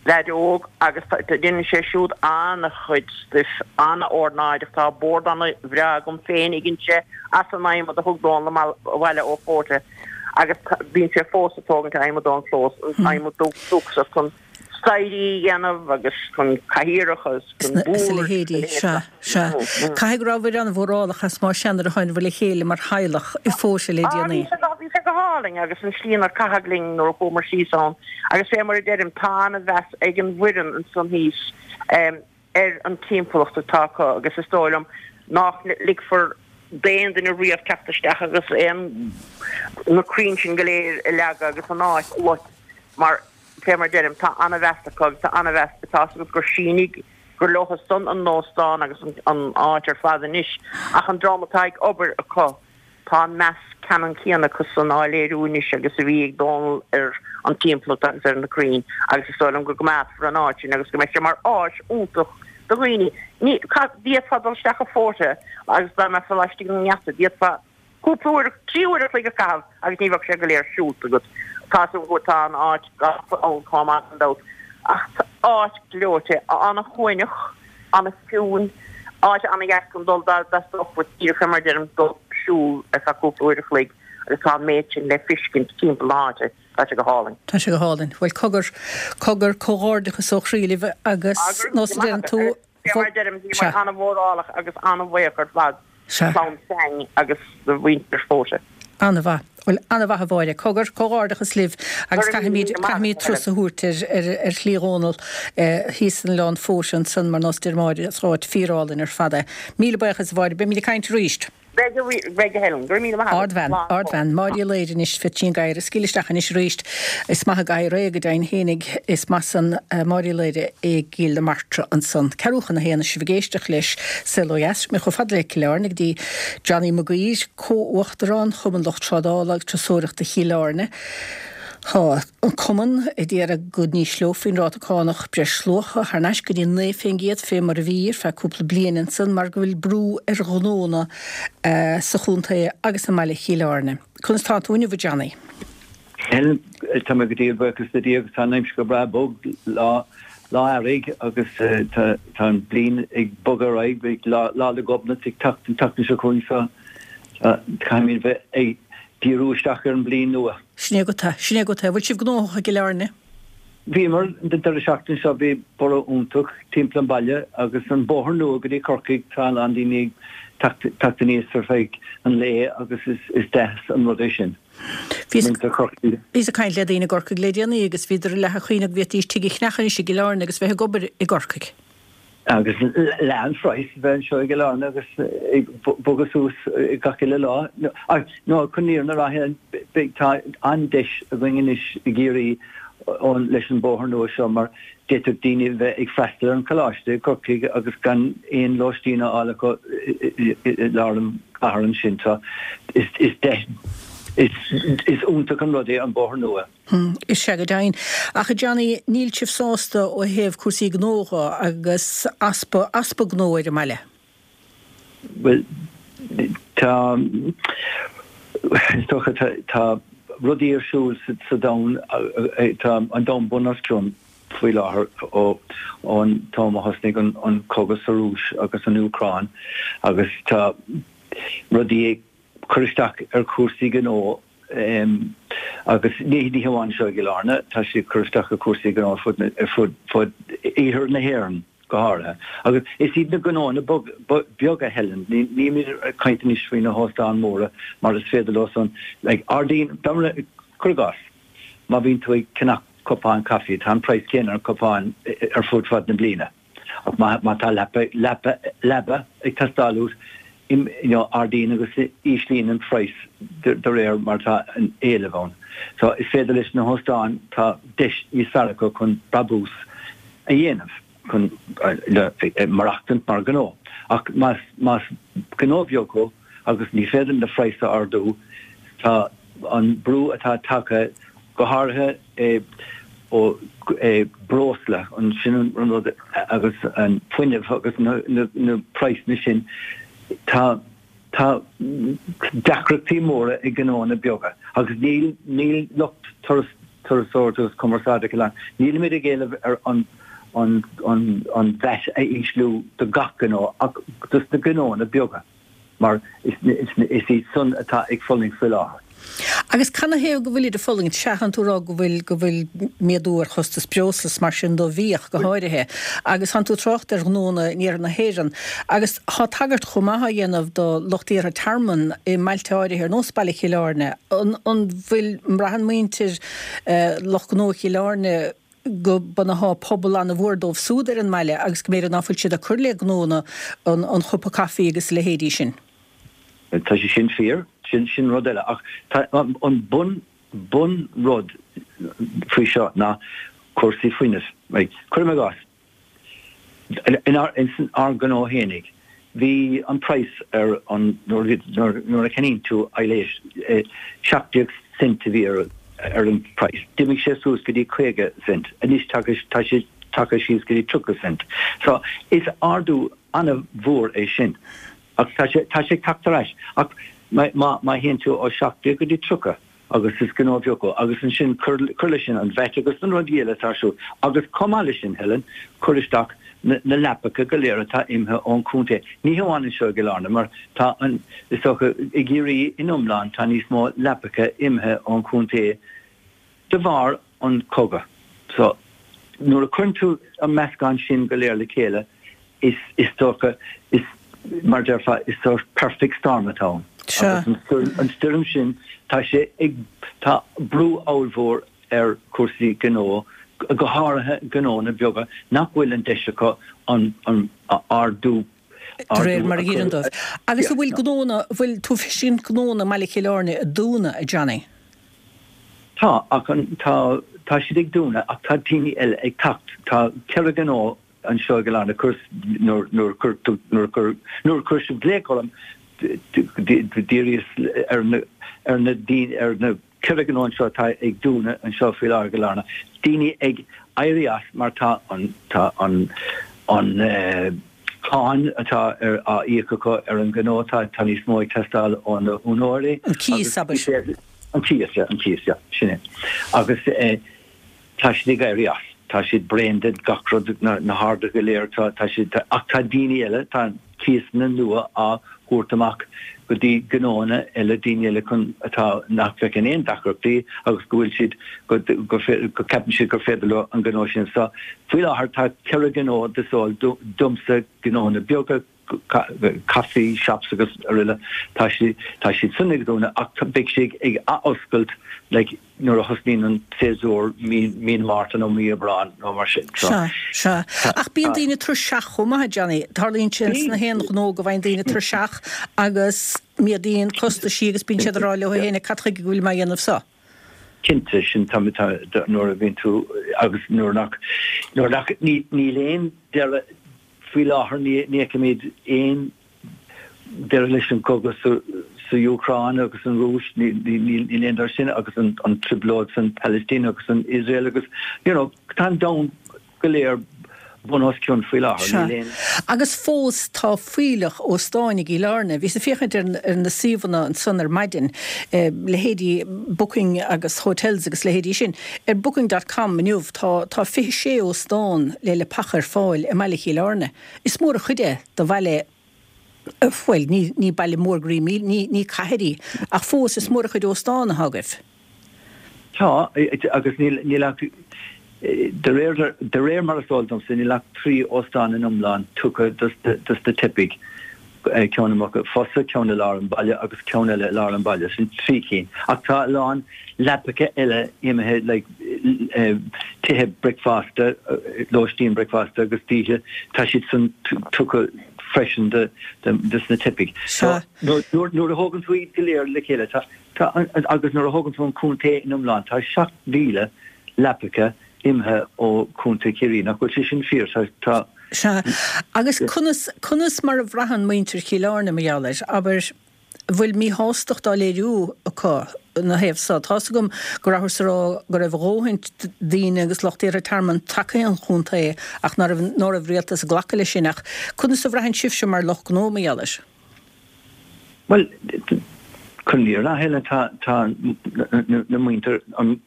leaid óg agus déanann sé siúd an-chuid stuif, an-ornáideach. Tá bord an-bhreá agam féin a dhein sé as an adhmad a thug Dónal abhaile ó Fóite agus bíonn sé fós ag tógaint adhmad ón chlós, an adhmad dúchasach chun staighrí a dhéanamh agus chun cathaoireacha agus chun Is a boird leithéidí, sea, sea. Caithfidh go rabhabhair an-mhórálach as má sea nuair a tháinabhair le chéile mar theaghlach i bhFóite le déanaí. Bhí sé go, bhí sé go hálainn agus an slí inar caitheadh linn nuair a chuamar síos ann agus fé mar a deirim tá ana-mheas ag an bhfoireann ansan thíos ar an timpeallacht atá acu agus is dóigh liom nach ligfear d'aon duine riamh teacht isteach agus aon na crainn sin go léir a leagadh agus an áit a loit mar Fé mar deirim, tá ana-mheas acu agus tá ana-mheas, tá 'fhios agat gur sínigh, gur leotha san an óstán agus an áit ar fad anois, ach an dream atá ag obair acu, tá an meas ceannann céanna acu san á léiriú anois agus a bhí ag Dónal ar an timpeallacht agus ar na crainn agus is dóigh liom go gcoimeádfar an áit sin agus go mbeidh sé mar áis iontach do dhaoine. Ní, d'fhéadfá dul isteach i Fóite agus dá mbeifeá laistigh den ngeata, d'fhéadfá Cúpla uair, 3 uair a chloig a chaitheamh agus ní bheadh sé go léir siúlta agat. Tá 'fhios agam go tá an áit gafa ann chomh maith gan dabht. Ach áit gleoite, ana-shuaimhneach, ana-chiúin, áit ana-dheas chun dul dá dteastódh uait díreach fé mar a deirim dul siúl ar feadh cúpla uair a chloig agus tá an méid sin le feiscint timpeall na háite. Tá sé go hálainn. Tá sé go hálainn. Bhuel cogar, cogar, comhghairdeachas ó chroí libh agus nós a deireann tú, Fé mar a deirim, bhíomar ana-mhórálach agus ana-bhuíoch ar fad do chlann Sang agus do mhuintir Fóite. Ana-mhaith. Bhuel, ana-mhaith a Mháire. Cogar, comhghairdeachas libh agus caithfimid, caithfimid turas a thabhairt ar, ar, ar Shlí Dhónaill thíos in Oileán Fóite ansan mar nós deir Máire, is áit fíorálainn ar fad é. Míle buíochas a Mháire, beimid ag caint arís. Beidh, a beidh a Helen. Go raibh míle maith agat. Ardbhean, ardbhean. Máire Uí Laoire anois, Pheaitín Gadhair ag scaoileadh isteach anois arís. Is maith an gadhar é, go deimhin fhéinig. Is maith san Máire Uí Laoire i gCill na Martra ansan. Ceathrú chun a haon is sibh ag éisteacht leis Saol Ó Dheas. Mé chomh fada le Cill Airne go dtí Johnny Mac Uidhir, Comh-Uachtarán Chumann Lucht Trádála agus Turasóireachta Chill Airne. Tá an Cumann ag iarraidh go n-ísleofaí an ráta cánach breisluacha thar n-ais go dtí 9% fé mar a bhí ar feadh cúpla bliain ansan mar go bhfuil brú ar ghnónna sa chontae agus i mbaile Chill Airne. Conas tá tú inniu a Johnny? Helen, Tá mé go diail buíochas le Dia agus tá an aimsir go breá bog, lá lá earraigh agus tá an bliain ag bogadh ar aghaidh, beidh Lá 'le Gobnait ag teacht an tseachtain seo chugainn so caithfimid bheith ag díriú isteach ar an bliain nua. Sin é agat é. Sin é agat é. Bhfuil sibh gnóthach i gCill Airne? Bhíomar, an deireadh seachtaine seo bhí borradh iontach timpeall an bhaile agus an bóthar nua go dtí Corcaigh, tá a lán daoine ag teacht aníos ar feadh an lae agus is deas an rud é sin. Muintir Chorcaí. Bhíos ag caint le daoine i gCorcaigh le déanaí agus bhíodar ag leath a chuimhneamh go bhféadfaidís tigh a cheannach anois i gCill Airne agus bheith ag obair i gCorcaigh. Agus leath an phraghas a bheith anseo i gCill Airne agus ag bogadh suas gach uile lá. Nó chun an fhírinne a rá, beidh, tá an-deis againn anois i gCiarraí leis an bóthar nua seo mar d'fhéadfadh daoine bheith ag freastal ar an choláiste i gCorcaigh agus gan aon lóistín a fháil acu i lár an chathair ansin. So is deis, is iontach an rud é an bóthar nua. Is ea go deimhin. Ach a Johnny, níl sibh sásta ó thaobh cúrsaí gnó dho agus easpa, easpa gnó ar an mbaile? Bhuel, tá, is dócha, tá, tá. rudaí ar siúl sa domhan, tá an domhan bun os cionn faoi láthair ó ón t-am a thosnaigh an cogadh sa Rúis agus an Úcráin agus tá rudaí ag cur isteach ar chúrsaí gnó agus ní hamháin anseo i gCill Airne, tá sé ag cur isteach ar chúrsaí gnó ar fud ar fud fud iarthar na hÉireann go háirithe. Agus is iad na gnóanna beaga, Helen, nílimid ag caint anois faoi na hóstáin mhóra mar is féidir leo san, like, ardaíonn, cuir i gcás, má bhíonn tú ag ceannach cupán caife, tá an praghas céanna ar an cupán ar fud fad na bliana. Ach má tá leapa, leapa, leaba ag teastáil uait, you know, ardaíonn agus íslíonn an praghas de réir mar atá an éileamh ann. So is féidir leis na hóstáin, tá deis níos fearr acu chun brabús a dhéanamh, chun maireachtaint mar ghnó. Ach más, más gnó beag thú agus ní féidir na praghas a ardú, tá an brú atá tagtha, go háirithe ó breosla, an sin an rud agus an fuinneamh agus na praghsanna sin, tá tá deacrachtaí móra ag gnóanna beaga agus níl níl lucht turas turasóireachta agus cumarsáide Chill Airne, nílimid ag éileamh ar an an an an VAT a ísliú do gach gnó ach dos na gnóanna beaga. mar is iad san atá ag fulaingt faoi láthair. Agus canathaobh go bhfuilid ag fulaingt? Sea, tánn tú ag rá go bhfuil, go bhfuil méadú ar chostas breosla is mar sin do bhiadh go háirithe. Agus tánn tú ag trácht ar ghnóanna in iarthar na hÉireann. Agus tá tagairt chomh maith á dhéanamh do lucht iarrtha tearmann i mbailte áirithe ar nós baile Chill Airne. An, an bhfuil, an mbraitheann muintir lucht gnó Chill Airne, go mbunófá pobal an-mhór dóibh súd ar an mbaile agus go mb'fhéidir ná fuil siad ag cur le gnónna an chupa caife agus a leithéidí sin. Tá sé sin fíor, sin sin rud eile ach tá an bun bun rud faoi seo ná cúrsaí fuinnimh. Cuirim i gcás, In ár ngnó fhéinig, bhí an praghas ar an, nuair a cheannaíonn tú aibhléis, 17 cent a bhí ar an praghas. D'imigh sé suas go dtí 50 cent. Anois tá sé tagtha síos go dtí 30 cent. So, is ardú an-mhór é sin. Ach tá sé ag teacht ar ais. Ach má théann tú ó 17 go dtí 30, agus is gnó beag thú, agus ansin cuir leis sin an VAT agus na rudaí eile atá ar siúl, agus chomh maith leis sin, Helen, cuir isteach na leapacha go léir atá imithe ón chontae, ní hamháin anseo i gCill Airne, mar tá an, is dócha, i gCiarraí in iomlán, tá níos mó leapacha imithe ón chontae de bharr an chogadh. So, nuair a chuireann tú an meascán sin go léir le chéile, is, is dócha, is, mar a déarfá, is sórt perfect storm atá ann. Sea. Agus an stoirm sin, tá sé ag, tá brú ollmhór ar chúrsaí gnó, go háirithe gnónna beaga nach bhfuil an deis acu an, an ardú, De réir mar a dh'iarrann dóibh. Agus an bhfuil gnónna, an bhfuil tú ag feiscint gnónna i mbaile Chill Airne ag dúnadh, a Johnny? Tá, ach an, tá, tá siad ag dúnadh ach tá daoine eile ag teacht. Tá ceithre ghnó anseo i gCill Airne, cuir, nuair, nuair a chuir tú, nuair a chuir, nuair a chuir sibh glaoch orm, d'fhiafraíos ar na, ar na daoine, ar na ceithre ghnó anseo atá ag dúnadh anseo faoi láthair i gCill Airne, daoine ag éirí as mar tá an, tá an, an eh, cáin atá ar, á íoc acu ar an ghnó, tá, tá níos mó ag teastáil ó na húinéirí. An cíos, abair. An cíos, yeah, an cíos, yeah, sin é. Agus eh, Tá siad ag éirí as. Tá siad bréan de gach rud, na harduithe go léir, tá, tá siad, ach tá daoine eile, tá cíosanna nua á thabhairt amach go dtí gnóanna eile, daoine eile chun, atá, nach bhfeiceann aon deacrachtaí agus go bhfuil siad, go, go, go ceapann siad gur féidir leo an gnó sin. So, faoi láthair tá ceithre ghnó is eol domsa, gnóanna beaga, coffee shops agus araile, tá siad, tá siad san ag dúnadh ach beidh siad ag athoscailt like nuair a thosnaíonn an séasúr mí, mí na Márta nó mí Aibreán nó mar sin. So, Sea, sea. Ach bíonn daoine tuirseach chomh maith, a Johnny. Tarlaíonn sé sna haon ghnó go bhfaigheann daoine tuirseach agus méadaíonn costaisí agus bíonn siad ag rá leo féin cad chuige go bhfuil mé á dhéanamh seo? Cinnte, sin tá, tá, nuair a bhíonn tú agus nuair nach, nuair nach, ní, níl aon deireadh, Faoi láthair ní fheicimid aon deireadh leis an gcogadh sa Úcráin agus an Rúis, níl aon deireadh sin agus an trioblóid san Palaistín agus san Iosrael agus you know tá an domhan go léir. bun os cionn faoi láthair. Sea. Níl aon. Agus fós tá fuílleach óstáin i gCill Airne. Bhíos ag féachaint ar na suíomhanna ansan ar maidin, leithéidí Booking agus Hotels agus leithéidí sin. Ar Booking dot com inniu tá tá 26 óstán le leapacha ar fáil i mbaile Chill Airne. Is mór an chuid é do bhaile, bhuel, ní ní baile mór go raibh ní ní cathair í, ach fós is mór an chuid óstán atá agaibh. Tá, agus níl, níl ach, de réir, de réir mar is eol domsa, níl ach 3 óstán in iomlán tugtha dos na teifigh, ceann i Muc Fosa, ceann i lár an bhaile agus ceann eile i lár an bhaile, sin 3 cinn. Ach tá a lán leapacha eile imithe, like, tithe bricfeasta, lóistín bricfeasta agus d'oíche, tá siad san tugtha freisin dos na teifigh. Sea. So, nuair a thógann tú iad go léir le chéile, tá, Tá, agus nuair a thógann tú an contae in iomlán, tá 7,000 leapacha imithe ó Chontae Chiarraí. Nach bhfuil sé sin fíor? Tá, tá. Sea. Agus conas, conas mar a bhraitheann muintir Chill Airne mar gheall air? Abair, an bhfuil míshástacht á léiriú acu ina thaobh so? Tá's agam go rabhthas ag rá go raibh a dhóthain daoine agus lucht iarrtha tearmainn tagtha chun an chontae ach ná raibh, ná raibh rialtas ag glacadh leis sin. Ach conas a bhraitheann sibhse mar lucht gnó mar gheall air? Bhuel, chun an fhírinne a Helen, tá tá na muintir, an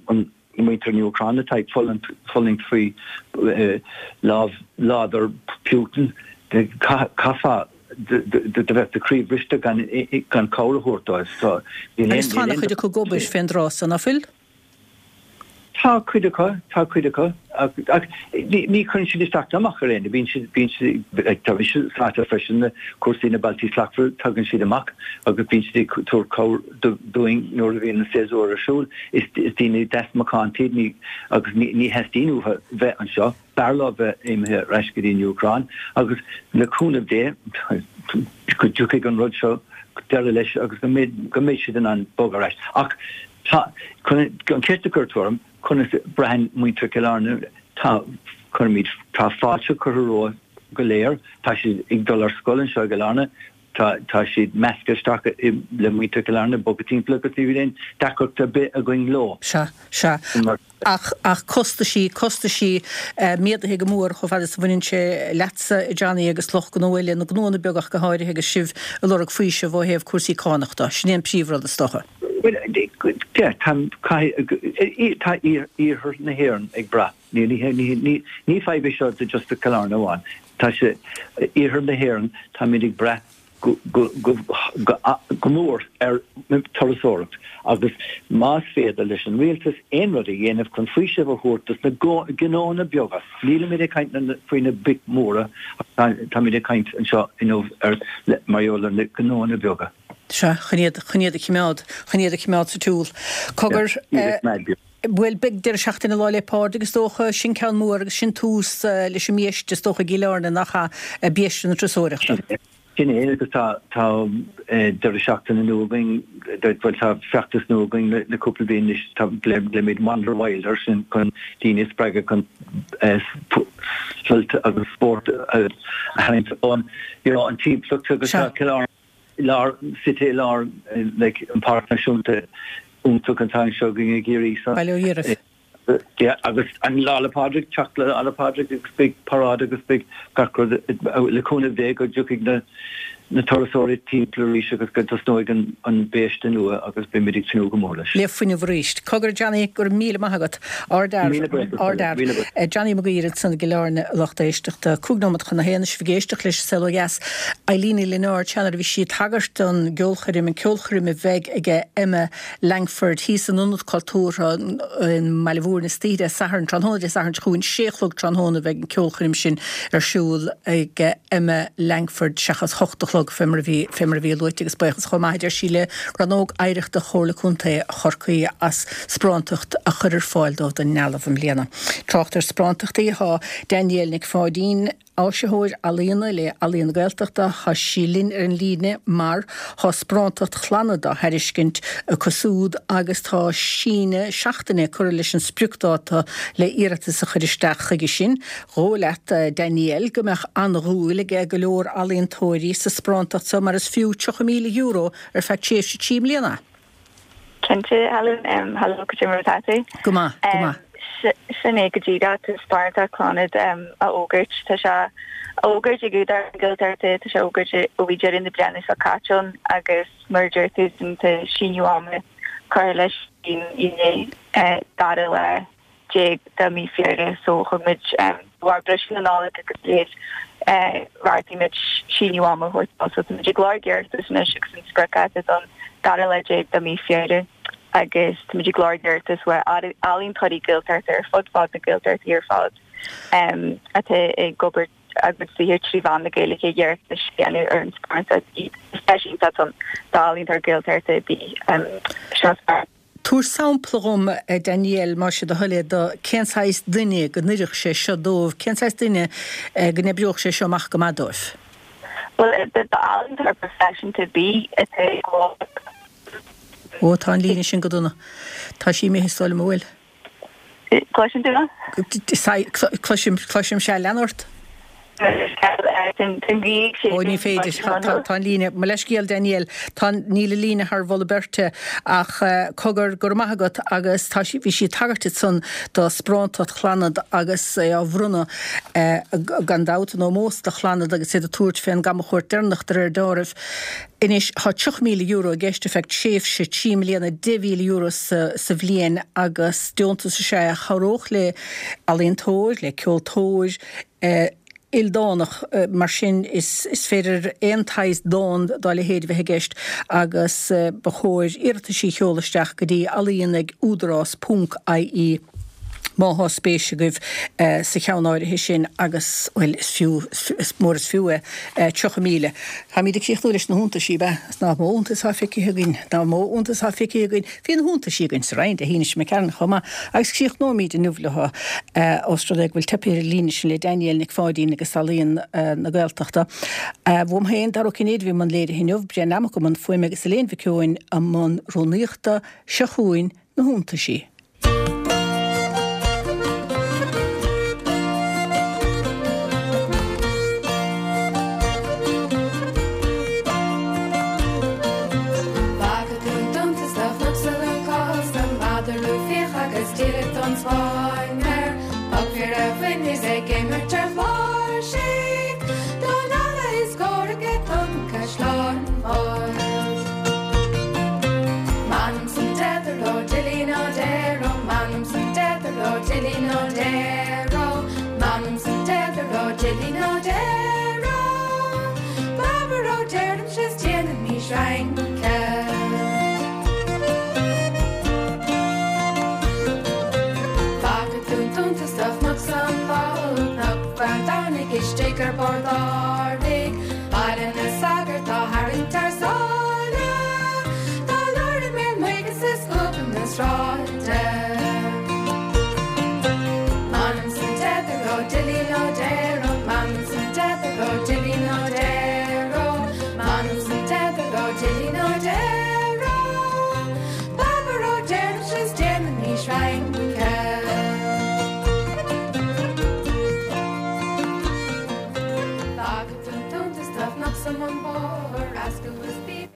muintir na hÚcráine atá ag fulaingt faoi lámh láidir Putin, chaithfeá do bheith do chroí bhriste gan gan cabhair a thabhairt dóibh. So, níl aon. Agus tá an-chuid acu ag obair fén dtráth so, ná fuil? Tá cuid acu, tá cuid acu, ach ní chuireann siad isteach ná amach ar éinne, bíonn siad, bíonn siad, like, tá mise sáite freisin le cúrsaí na Bealtaí Slachtmhara, tagann siad amach agus bíonn siad ag tabhairt cabhair dúinn nuair a bhíonn an séasúr ar siúl. Is daoine deas macánta iad, ní, agus ní, ní theastaíonn uathu bheith anseo. B'fhearr leo bheith imithe ar ais go dtí an Úcráin agus le cúnamh Dé go dtiocfaidh an rud seo deireadh leis agus go mbeidh, go mbeidh siad in ann bogadh ar ais. Ach tá, chun an cheist a chuir tú orm, conas a braitheann muintir Chill Airne, tá, cuirimid, tá fáilte curtha rompu go léir, tá siad ag dul ar scoil anseo i gCill Airne, tá, tá siad measctha isteach le muintir Chill Airne, bogtha timpeall agus ní bhíonn aon deacracht ar bith againn leo. Sea, sea. Ach, ach costaisí, costaisí méadaithe go mór chomh fada is a bhaineann sé leatsa, a Johnny, agus lucht gnó eile, na gnóanna beaga ach go háirithe, agus sibh ag lorg faoiseamh ó thaobh cúrsaí cánach de. Sin é an príomhrud, is dócha. Bhuel, yeah, tá, caithfidh, tá iarthar na hÉireann ag brath. Ní, ní, ní, ní fadhb é seo do just do Chill Airne amháin. Tá sé, iarthar na hÉireann, táimid ag brath go, go, go, go, go mór ar turasóireacht agus más féidir leis an rialtas aon rud a dhéanamh chun faoiseamh a thabhairt dos na gnóanna beaga, nílimid ag caint faoi na boic mhóra ach táimid ag caint anseo inniu ar, mar gheall ar na gnóanna beaga. Sea, chun iad, chun iad a chimeád, chun iad a chimeád sa tsiúl. Cogar, eh, bhuel, beidh deireadh seachtaine Lá 'le Pádraig is dócha, sin ceann mór agus sin tús leis an mbiaiste is dócha i gCill Airne, nach ea, biaiste na turasóireachta. Sin é, agus tá, tá deireadh seachtaine nua againn, bhuel, tá feachtas nua againn le, le cúpla bliain anois, tá, glaoimid Wander Wild air sin chun daoine a spreagadh chun sult agus spórt a tharraingt ón, you know, an timpeallacht agus tá Cill Airne, i lár, suite i lár like an Páirc Náisiúnta iontach atá anseo againn i gCiarraí so. Bail ó Dhia oraibh. Yeah, agus an Lá 'le Pádraig, teacht le Lá 'le Pádraig agus beidh paráid agus beidh gach rud le cúnamh Dé go dtiocfaidh na na turasóirí timpeall arís agus go dtosnóidh an an biaiste nua agus beimid ag tnúth go mór leis. Le fuinneamh arís. Cogar Johnny, go raibh míle maith agat. Ardfhear. Míle buíochas. Ardfhear. Míle buíochas. Johnny Mac Uidhir ansan i gCill Airne, a lucht éisteachta. 5 nóiméad chun a haon, sibh ag éisteacht leis an Saol Ó Dheas. Eileen Ní Lionáird, sea nuair a bhí sí ag tagairt don gceolchoirm, an ceolchoirm a bheidh aige Emma Langford thíos in Ionad Cultúrtha i mBaile Mhúirne istoíche Dé Sathairn, tráthnóna Dé Sathairn seo chugainn, sé a chlog tráthnóna a bheidh an ceolchoirm sin ar siúl ag Emma Langford seachas hocht a chlog fé mar a bhí, fé mar a bhí luaite agus buíochas chomh maith a deir sí le Rannóg Oidhreachta Chomhairle Contae Chorcaí as sparántacht a chur ar fáil dóibh don ndealbh i mbliana. Trácht ar sparántachtaí, tá Danielle Nic Pháidín, Áisitheoir Ealaíona le Ealaíon na Gaeltachta, tá sí linn ar an líne mar tá sparántacht Chlannad á thairiscint acu súd agus tá síneadh seachtaine curtha leis an spriocdáta le iarratas a chur isteach chuige sin. Dhóigh leat, Danielle, go mbeadh an-dhúil aige go leor ealaíontóirí sa sparántacht seo mar is fiú €30,000 ar feadh tréimhse 3 mbliana. Cinnte, Helen. Hello, cad é mar atá tú? Go maith, go maith. Sin é go díreach, tá Sparánacht Chlannad á fhógairt. Tá sé á fhógairt ag Údarás na Gaeltachta, tá sé á fhógairt ó bhí deireadh na bliana seo caite ann agus mar a deir tú tá síneadh ama curtha leis inné, dara lá déag de mhí Feabhra so thug muid de bharr briseadh na Nollag agus a leithéid bheartaigh muid síneadh ama a thabhairt dó so tá muid ag lorg iarratas anois agus an spriocdháta don dara lá déag de mhí Feabhra agus tá muid ag lorg iarratas ó ealaíontóirí Gaeltachta ar fud fad na Gaeltachtaí ar fad atá ag obair a gcuid saothair trí mheán na Gaeilge iarratas a dhéanamh ar an sparánacht. Is deis iontach ann d'ealaíontóir Gaeltachta ar bith seo Tabhair sampla dhom, a Danielle, más é do thoil é, de cén saghas duine go n-oirfeadh sé seo dóibh, cén saghas duine go n-oibreodh sé seo amach go maith dóibh? Bhuel, d'ealaíontóir proifisiúnta ar bith atá ag gabháil. Ó, tá an líne sin go dona. Tá sí imithe, is dóigh liom, an bhfuil? Cloiseann tú mé? Cloisim, cloisim, sea, lean ort. Ó, ní féidir, tá an líne, mo leithscéal Danielle, tá, níl an líne thar mholadh beirte ach cogar, go raibh maith agat agus tá sí, bhí sí ag tagairt ansan do sparántacht Chlannad agus é á bhronnadh gan dabht in ómós do Chlannad agus iad ag tabhairt fén gcamchuairt deireanach de réir deáraimh. Anois, tá €30,000 i gceist ar feadh tréimhse 3 mbliana, €10,000 sa bhliain agus deontas is ea é a chabhródh le ealaíontóir, le ceoltóir ildánach. Mar sin, is féidir aon tsaghas dán dá leithéid a bheith i gceist agus ba chóir iarrataisí a sheoladh isteach go dtí ealaíon ag údarás ponc ie. Má thá spéis agaibh sa cheann áirithe sin agus, bhuel, is fiú, is mór is fiú é, 30,000. Táimíd ag críochnú leis na hiontaisí, ab ea? Is nach mó iontas atá feicthe againn, nach mó iontas atá feicthe againn. Bhí na hiontaisí againn sa Roinn Dé hAoine seo imigh tharainn chomh maith agus críochnóimíd inniu leo, ós rud é go bhfuil teipthe ar an líne sin le Danielle Nic Pháidín agus Ealaíon na Gaeltachta. Uaim féin, Dara Ó Cinnéide, a bhí i mbun léirithe inniu, Brian Lammock i mbun fuaime agus Elaine Mhic Eoin i mbun rúnaíochta. Seo chugainn na hiontaisí. Bhfaca tú an t-iontas do chnoc sa lúcás, an madra rua fiach agus díreach don Spáinn air. Poc fir a bhain is ag imirt ar chláirsigh, don eala is comhrac ag Tonn Caisleáin Bhail. M'anam 's an deathair ó Dillín Ó Deir ó M'anam 's an deathair ó Dillín Ó Deir ó M'anam 's an deathair ó Dillín Ó Deir ó Babar ó deirimse 's déanaimís rince. Bhfaca tú an t-iontas do chnoc 's an ball Cnoc Bheann Domhnaigh istigh ar bord árthaigh Baile na Sagart á tharraingt thar sáile Dá lár i mbéal muice 's i scuab na sráide. M'anam 's an deathair ó Dillín Ó Deir.